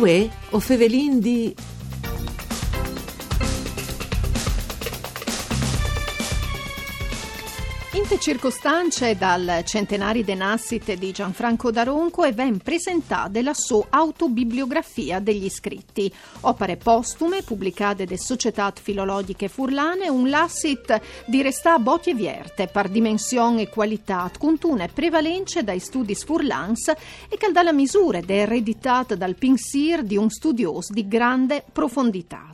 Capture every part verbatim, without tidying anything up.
Uè, o fevelin di... Inte circostance dal centenari de nassite di Gianfranco D'Aronco e ven presentade la so autobibliografia degli scritti, opare postume publicade de Societât Filologjiche Furlane, un lassit di restâ bocje vierte par dimension e cualitât, cuntune prevalence dai studis furlans e che al dà la misure de ereditât dal pinsîr di un studiôs di grande profonditât.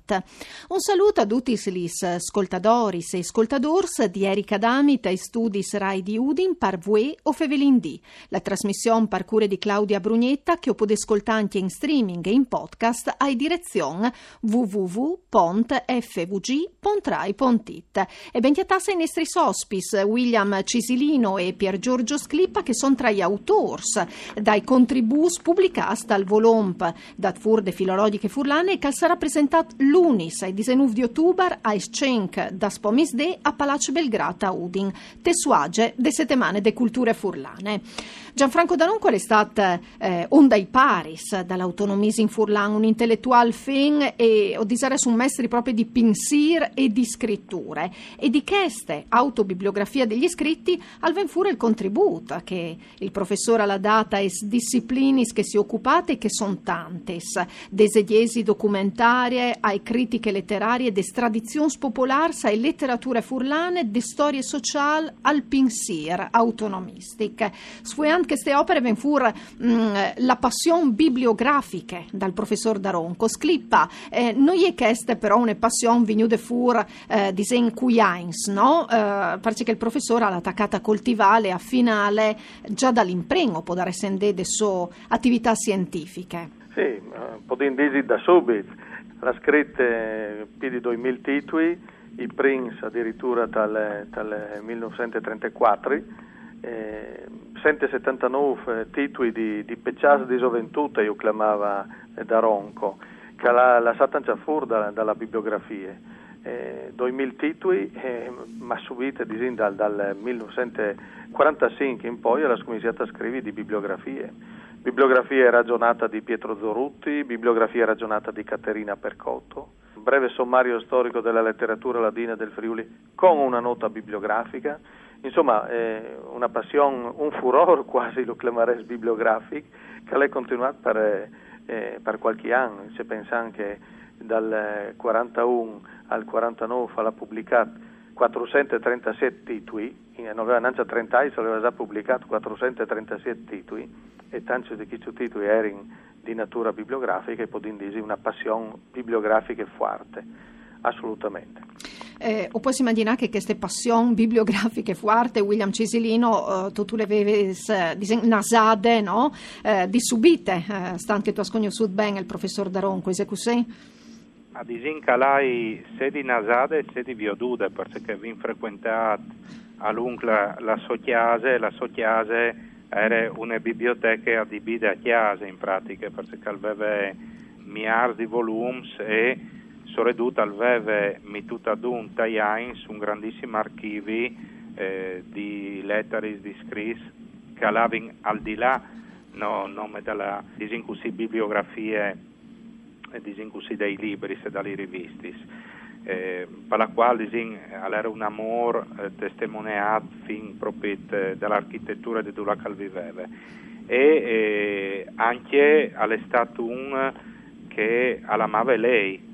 Un salût a dutis lis scoltadoris e scoltadôrs di Erika Dami tai studis Rai di Udin par Vuê o fevelin di, la trasmission par cure di Claudia Brugnetta che o podês scoltâ ancje in streaming e in podcast ai direzion w w w pont f v g pont rai pont it. E ben cjatâts ai nestris ospits, William Cisilino e Pier Giorgio Sclippa, che son tra i autôrs dai contribûts publicâts dal volomp dât fûr de Filologjiche Furlane e che al sarà presentât lunis, ai disenûf di otubar, aes cinc daspò misdì a Palaç Belgrât a Udin, te suaze de Setemane de Culture Furlane. Gianfranco D'Aronco al è stât, eh, un dai paris dal autonomisim furlan, un inteletuâl fin e, o disarès, un mestri propit di pinsîr e di scriture. E di cheste autobibliografie degli scritti al ven fûr il contribût che il professôr al à dât aes disciplinis che si ocupate, che son tantis, de esegjesi documentarie ae critiche leterarie, des tradizions popolârs ae leterature furlane, de storie sociâl al pinsîr autonomistic. Sfueant cheste opare ven fûr, mm, la passion bibliografiche dal professôr D'Aronco. Sclippa, eh, no je cheste però une passion vignude fûr, eh, disìn, cui agns, no? Eh, parcè che il professôr al à tacât a coltivâle, a finâle, za dal imprin, o podarès dî, de sô ativitât sientifiche. Sì, eh, podìn dî da subit. Al à scrit, eh, plui di doi mil titui, i prins adiritura tal, tal mil nûfcent e trentacuatri, eh, cent e setantanûf, eh, titui di, di pecjâts di zoventût, ju clamava, eh, D'Aronco, che al à lassât ancje fûr da, da la bibliografie. Eh, doi mil titui, eh, ma subit, disìn, dal, dal mil nûfcent e cuarantacinc in po al à scominciât a scrivi di bibliografie. Bibliografie ragjonate di Pietro Zorutti, bibliografie ragjonate di Caterina Percotto, breve sommario storico della letteratura ladina del Friuli con una nota bibliografica. Insomma, eh, una passion, un furôr cuasi lu clamarès bibliografic, che al è continuât par, eh, par cualchi an. Se pensìn che dal, eh, cuarantaun al cuarantanûf al à publicât cuatrusent e trentasîs titui, e no veve nancje trente agns, al veve za publicât cuatrusent e trentasîs titui, e tancj di chescj titui a jerin di nature bibliografiche, e podìn dî une passion bibliografiche fuarte, assolutamente. Eh, o pues imagjinâ che cheste passion bibliografiche fuarte, William Cisilino, eh, tu, tu le vevis, eh, disìn, nasade, no? Eh, di subite, eh, stant che tu âs cognossût ben il professôr D'Aronco, isal cussì? Ma disìn che le ai sedi nasade e sedi viodude, parcè che o vin frecuentât a lunc la, la sô cjase, la sô cjase e jere une biblioteche adibide a cjase, in pratiche, parcè che al veve miârs di volums e, soredut, al veve metût adun tai agns un grandissim archivi, eh, di letaris, di scrits che a lavin al di là, no, nome da la, disìn cussì, bibliografie, eh, disìn cussì, dai libris e da lis rivistis, eh, par la cuâl, disìn, al jere un amôr, eh, testemoneât fin propit, eh, da la architeture di dulà che al viveve. E, eh, ancje al è stât un che al amave lei,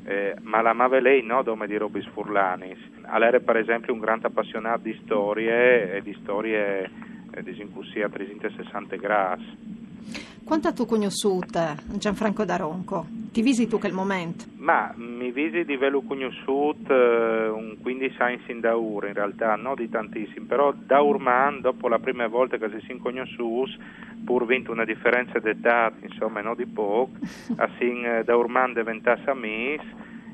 eh, ma al amave lei no dome di robis furlanis. Al jere, par esempli, un grant apassionât di storie, e di storie, eh, disìn cussì, a tresinte sessante grâts. Cuant âstu cognossût, eh, Gianfranco D'Aronco? Ti visi tu chel moment? Ma mi visi di vêlu cognossût, eh, un cuindis agns indaûr, in realtât, no di tantissim, però daurmant, dopo la prime volte che si sin cognossûts, pûr vint une diference di etât, insome, no di pôc, a sin, eh, daurmant deventâts amîs,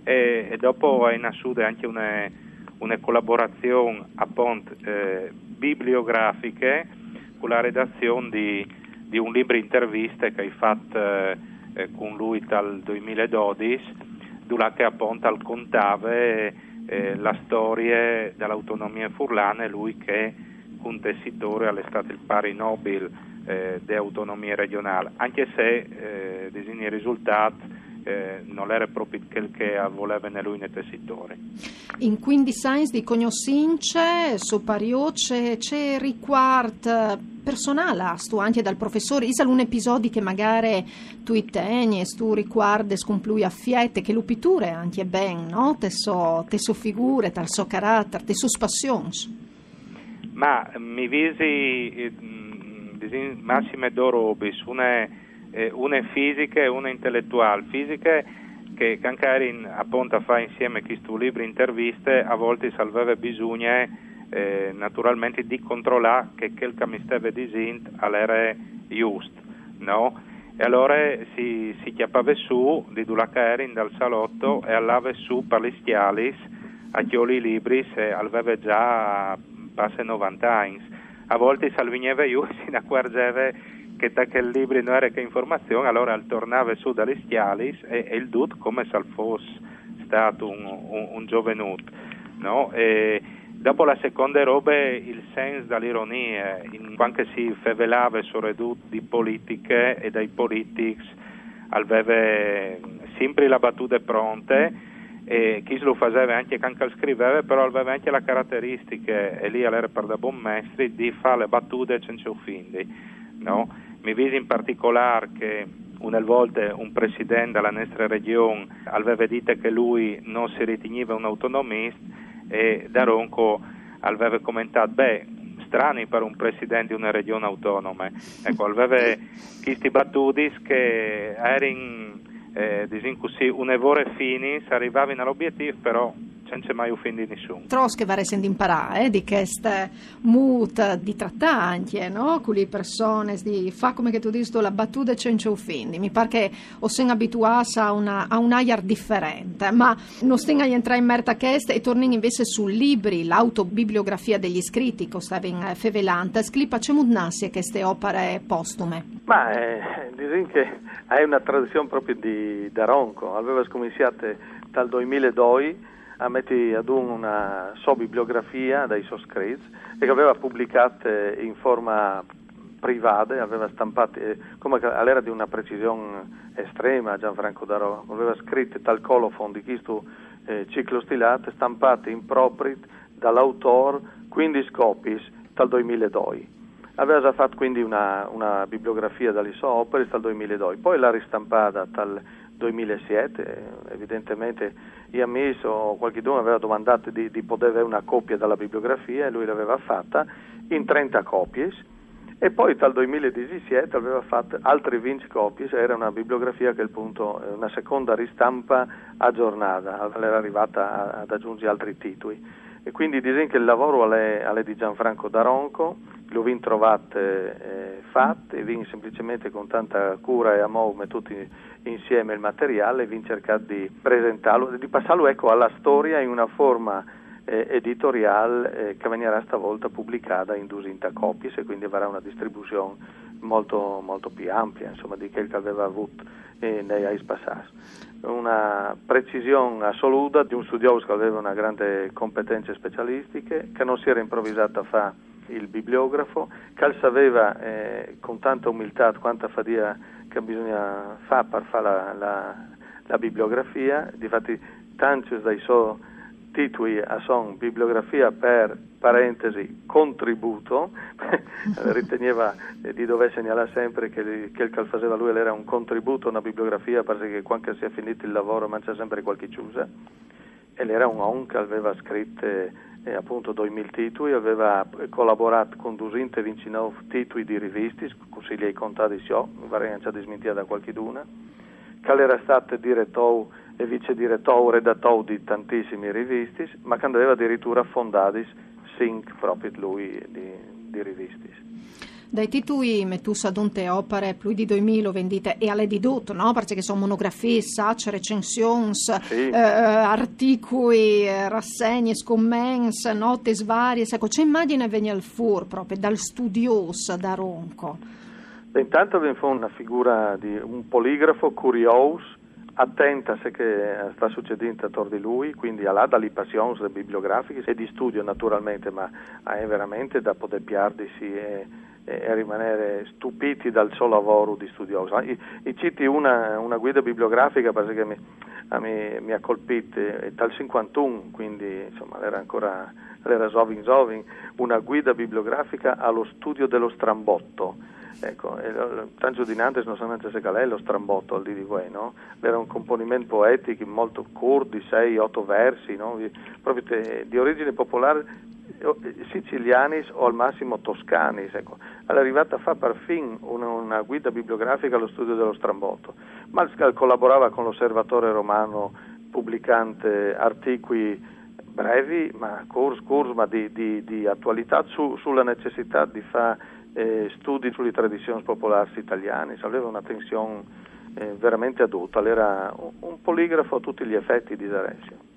e, e dopo e je nassude ancje une, une colaborazion, apont, eh, bibliografiche, cu la redazion di, di un libri interviste che o ai fat, eh, eh, cun lui tal doi mil e dodis, dulà che apont al contave, eh, la storie de autonomie furlane, lui che cuntessitôr al è stât il pari nobil eh, de autonomie regionâl, ancje se, eh, disìn, il risultât, eh, nol jere propit chel che al voleve ni lui ni i sitori. In cuindis agns di cognossince, so pariô, ce, ce ricuart personâl âstu ancje dal professôr? Isal un episodi che magari tu ti tegnis, tu ricuardes cun plui afiet, che lu piture ancje ben, no? Te sô, te sô figure, tal so caratar, tes sôs passions. Ma mi visi, eh, mm, disìn, massime dôs robis, une, eh, une fisiche e une inteletuâl. Fisiche che, che ancje a jerin apont a fâ insiemi chest libri interviste, a voltis al veve bisugne, eh, naturalmentri di controlâ che chel che mi steve disint al jere just, no? E alore si, si cjapave sù di dulà che a jerin, dal salot, e al lave sù par lis scjalis a cjoli i libris, e al veve za passe novante agns. A voltis al vigneve jù e si inacuarzeve che ta chel libri no jere che informazion, alore al tornave sù da lis scjalis e, e il dut come se al fos stât un, un, un zovenut, no? E dopo la seconde robe, il sens da l'ironie, in, cuant che si fevelave soredut di politiche e dai politics, al veve simpri la batude pronte, e chest lu faseve ancje cuant che al scriveve, però al veve ancje la carateristiche, e li al jere pardabon mestri, di fâ la batude cence ofindi, no? Mi visi in particolâr che une volte un president da la nestre region al veve dit che lui no si ritignive un autonomist, e D'Aronco al veve comentât: «Beh, strani par un president di une region autonome.» Eco, al veve chestis batudis che a jerin, eh, disìn cussì, une vore finis, a rivavin al obietîf, però cence mai ofindi nissun. Trops che varessin di imparâ, eh, di chest mût di tratâ ancje, no? Cu lis personis, di fâ, come che tu disis tu, la batude cence ofindi. Mi pâr che o sin abituâts a une, a un aiar diferent, ma no stin a jentrâ in mercj a chest e tornìn invezit sul libri, la autobibliografie dai scrits che o stavin, eh, fevelant. Sclipa, cemût nassino chestis operis postumis? Ma, eh, disìn che e je une tradizion propit di D'Aronco. Al veve scuminçât tal doi mil e doi a meti adun une sô bibliografie dai sôs scrits e che al veve publicât, eh, in forme privade, al veve stampât, eh, come che al jere di une precision estreme Gianfranco D'Aronco, al veve scrit tal colofon di chest, eh, ciclostilat, stampât in propit dal autôr cuindis copiis tal doi mil e doi. Al veve za fat cuindi une, une bibliografie da lis sôs operis tal doi mil e doi, po le à ristampadis tal doi mil e siet, eh, evidentementri i amîs o cualchidun al veve domandât di, di podê vê une copie da bibliografie e lui le veve fate in trente copiis. E po tal doi mil e disisiet al veve fat altris vincj copiis, e jere une bibliografie a chel pont, eh, une seconde ristampe agjornade, al jere rivât a, a agjunzi altris titui. E cuindi disìn che il lavôr al è, al è di Gianfranco D'Aronco, lu vin trovât, eh, fat, e vin semplicementri cun tante cure e amôr metût insiemi il materiâl e vin cercât di presentâlu, di passâlu, eco, a la storie in une forme, eh, editoriâl, eh, che al vignarà sta volte publicade in dusinte copiis e cuindi al varà une distribuzion molto, molto plui ampie, insome, di chel che al veve vût, eh, nei agns passâts. Une precision assolude di un studiôs che al veve une grande competence specialistiche, che no si jere improvisât a fâ il bibliografo, che al saveve, eh, cun tante umiltât cuante fadiie che bisugne fâ par fâ la, la, la bibliografie. Difati tancj dai sôs titui a son bibliografie par parentesi, contributo, al ritegnive, eh, di dovê segnalâ simpri che li, chel che al faseve lui al jere un contributo, une bibliografie, parcè che cuant che si è finît il lavôr al mancja simpri cualchi cjuse. E al jere un om che al veve scrit, eh, apont doi mil titui, al veve colaborât cun dusinte e vincjenûf titui di rivistis, cussì li ai contadis jo, mi varès ancje dismintiade cualchidune, che al jere stât diretôr e vicediretôr, redatôr di tantissimis rivistis, ma che 'nd veve adiriture fondadis cinc propit lui di, di rivistis. Dai titui metûts adun te opere, plui di doi mil, o vin dit, e al è di dut, no? Parcè che a son monografiis, sacs, recensions, sì, eh, articui, eh, rassegnis, coments, notis variis. Eco, ce imagjin e vegnial fûr propit dal studiôs D'Aronco? Beh, intant al ven fûr une figure di un poligrafo curiôs, atent a ce che al sta sucedint ator di lui, cuindi al à da lis passions bibliografichis e di studi naturalmentri, ma al è verementri da podê piardisi e e a rimanere stupiti dal so lavoro di studioso. I, i citi una, una guida bibliografica perché mi, a mi, mi ha colpito, eh, dal cinquantuno, quindi, insomma, l'era ancora, l'era zovin zovin, una guida bibliografica allo studio dello strambotto. Ecco, e lo, lo, tanto di nantes non so neanche se qual è lo strambotto al dì di voi, no? L'era un componimento poetico molto corto, di sei, otto versi, no? Di, proprio te, di origine popolare, eh, sicilianis o al massimo toscanis, ecco. È arrivata a fare perfino una, una guida bibliografica allo studio dello strambotto, ma collaborava con l'Osservatore Romano pubblicante articoli brevi, ma curs, curs, ma di, di, di attualità su, sulla necessità di fare, eh, studi sulle tradizioni popolari italiane. Aveva una tensione, eh, veramente aduta, l'era un, un poligrafo a tutti gli effetti di D'Arezzo.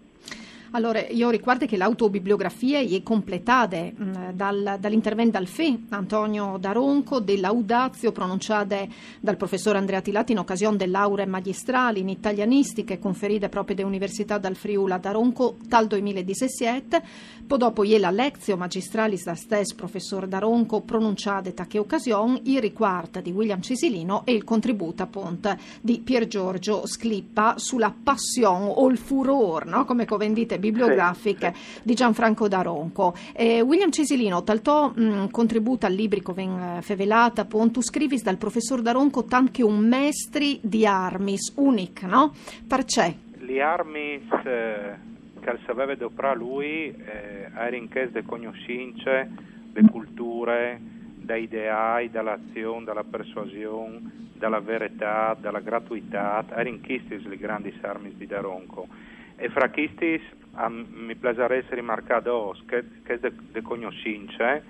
Allora, io ricordo che l'autobibliografia è completada, mm, dal, dall'intervento dal Fè, Antonio D'Aronco, dell'Audazio pronunciata dal professor Andrea Tilati in occasione delle lauree magistrali in italianistiche conferite proprio da Università dal Friuli a D'Aronco tal duemiladiciassette. Po dopo iè la Lectio Magistralis dal stes professor D'Aronco pronunciata ta che occasione, il riquart di William Cisilino e il contributo appunto di Pier Giorgio Sclippa sulla passione o il furor, no? Come covendite bibliografiche, sì, sì, di Gianfranco D'Aronco. Eh, William Cisilino, tal to, mm, contributo al libri che ven, eh, fevelata, appunto, scrivis dal professor D'Aronco tant che un mestri di armis, unic, no? Perché? Li armis, eh, che al saveva doprà lui, eh, a erin ches de cognoscince, de culture, da ideai, dalla azion, dalla persuasion, dalla veretà, dalla gratuità, a erin chistis li grandis armis di D'Aronco. E fra chistis a mi plasarès rimarcà dos, che, che de, de cognoscince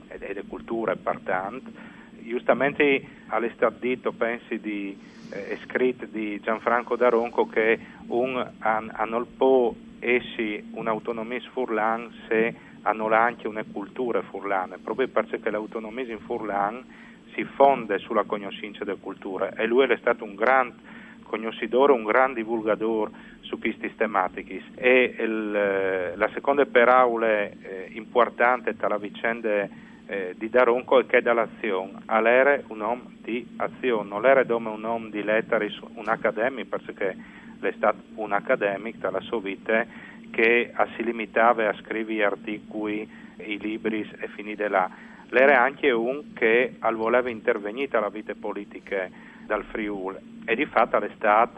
e de, de culture, par tant. Justamente al è stat dit, pensi, di, eh, scrit di Gianfranco D'Aronco che un a, a nol po essi un autonomis furlan se a nol anche une culture furlane, proprio perché l'autonomis in furlan si fonde sulla cognoscince de culture, e lui l'è stat un grand cognoscidor, un grand divulgador su chistis tematichis. E il, la seconde peraule, eh, importante ta la vicende, eh, di D'Aronco è che dall'azion al ere un om di azion, nol ere dome un om di lettaris, un academic, perché l'è stat un academic ta la so vite, che a si limitava a scrivi articui, i libris e finide là. L'ere anche un che al voleva intervegnì ta la vite politiche dal Friul, e di fat al è stat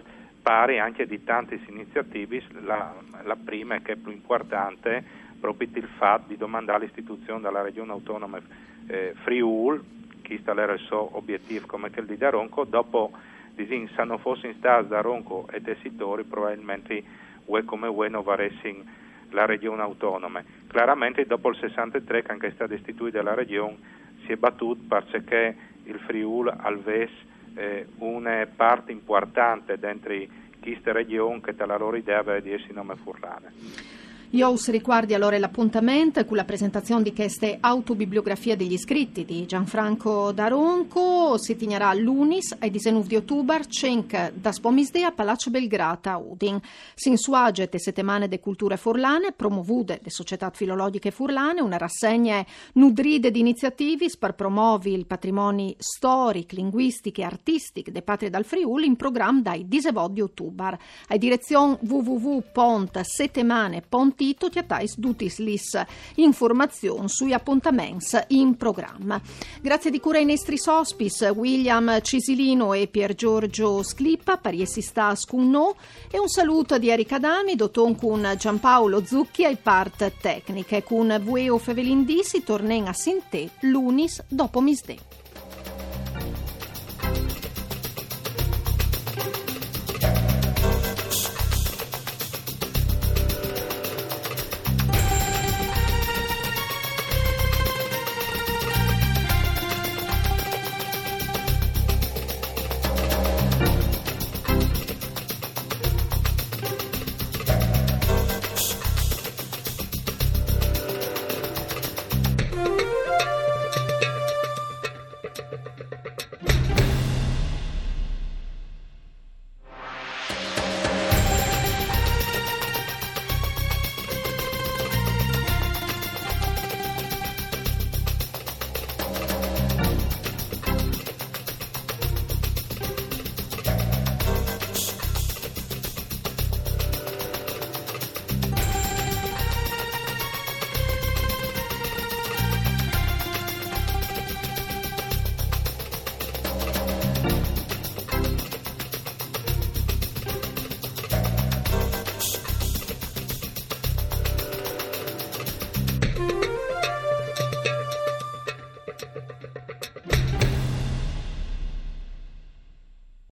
pari anche di tantis iniziativis, la, la prime, che è più importante, proprio il fat di domandare l'istituzione della regione autonoma, eh, Friul, chist al ere il so obiettiv come chel di D'Aronco, dopo, disin, se no fossin stats D'Aronco e tessitori, probabilmente ue come ue no varessin la regione autonome. Claramente dopo il sessantetré, che anche è stata istituita la regione, si è battut perché il Friul al ves, eh, une part importante dentri chiste region che ta la lor idea aveva di essi nome furlane. Io us ricuardi allora l'appuntament cu la presentazion di cheste autobibliografia degli scritti di Gianfranco D'Aronco. Si tignarà lunis ai disenuf di otubar, cinc das pomisdì a Palacio Belgrata a Udin. S'insuaget e setemane de culture furlane, promovude de Società Filologiche Furlane, una rassegne nudride di iniziativis per promovi il patrimoni storic, linguistic e artistic de patrie dal Friul in program dai disevot di otubar. A direzion w w w pont setemane pont it o cjatais dutis lis informazions sui appuntaments in program. Grazie di cura ai nestris ospis, William Cisilino e Pier Giorgio Sclippa, par essi stas cun no, e un saluto di Erika Dami, doton cun Giampaolo Zucchi ai part tecniche. Cun Vueo Fevelindì si tornen a sintè lunis dopo misdè.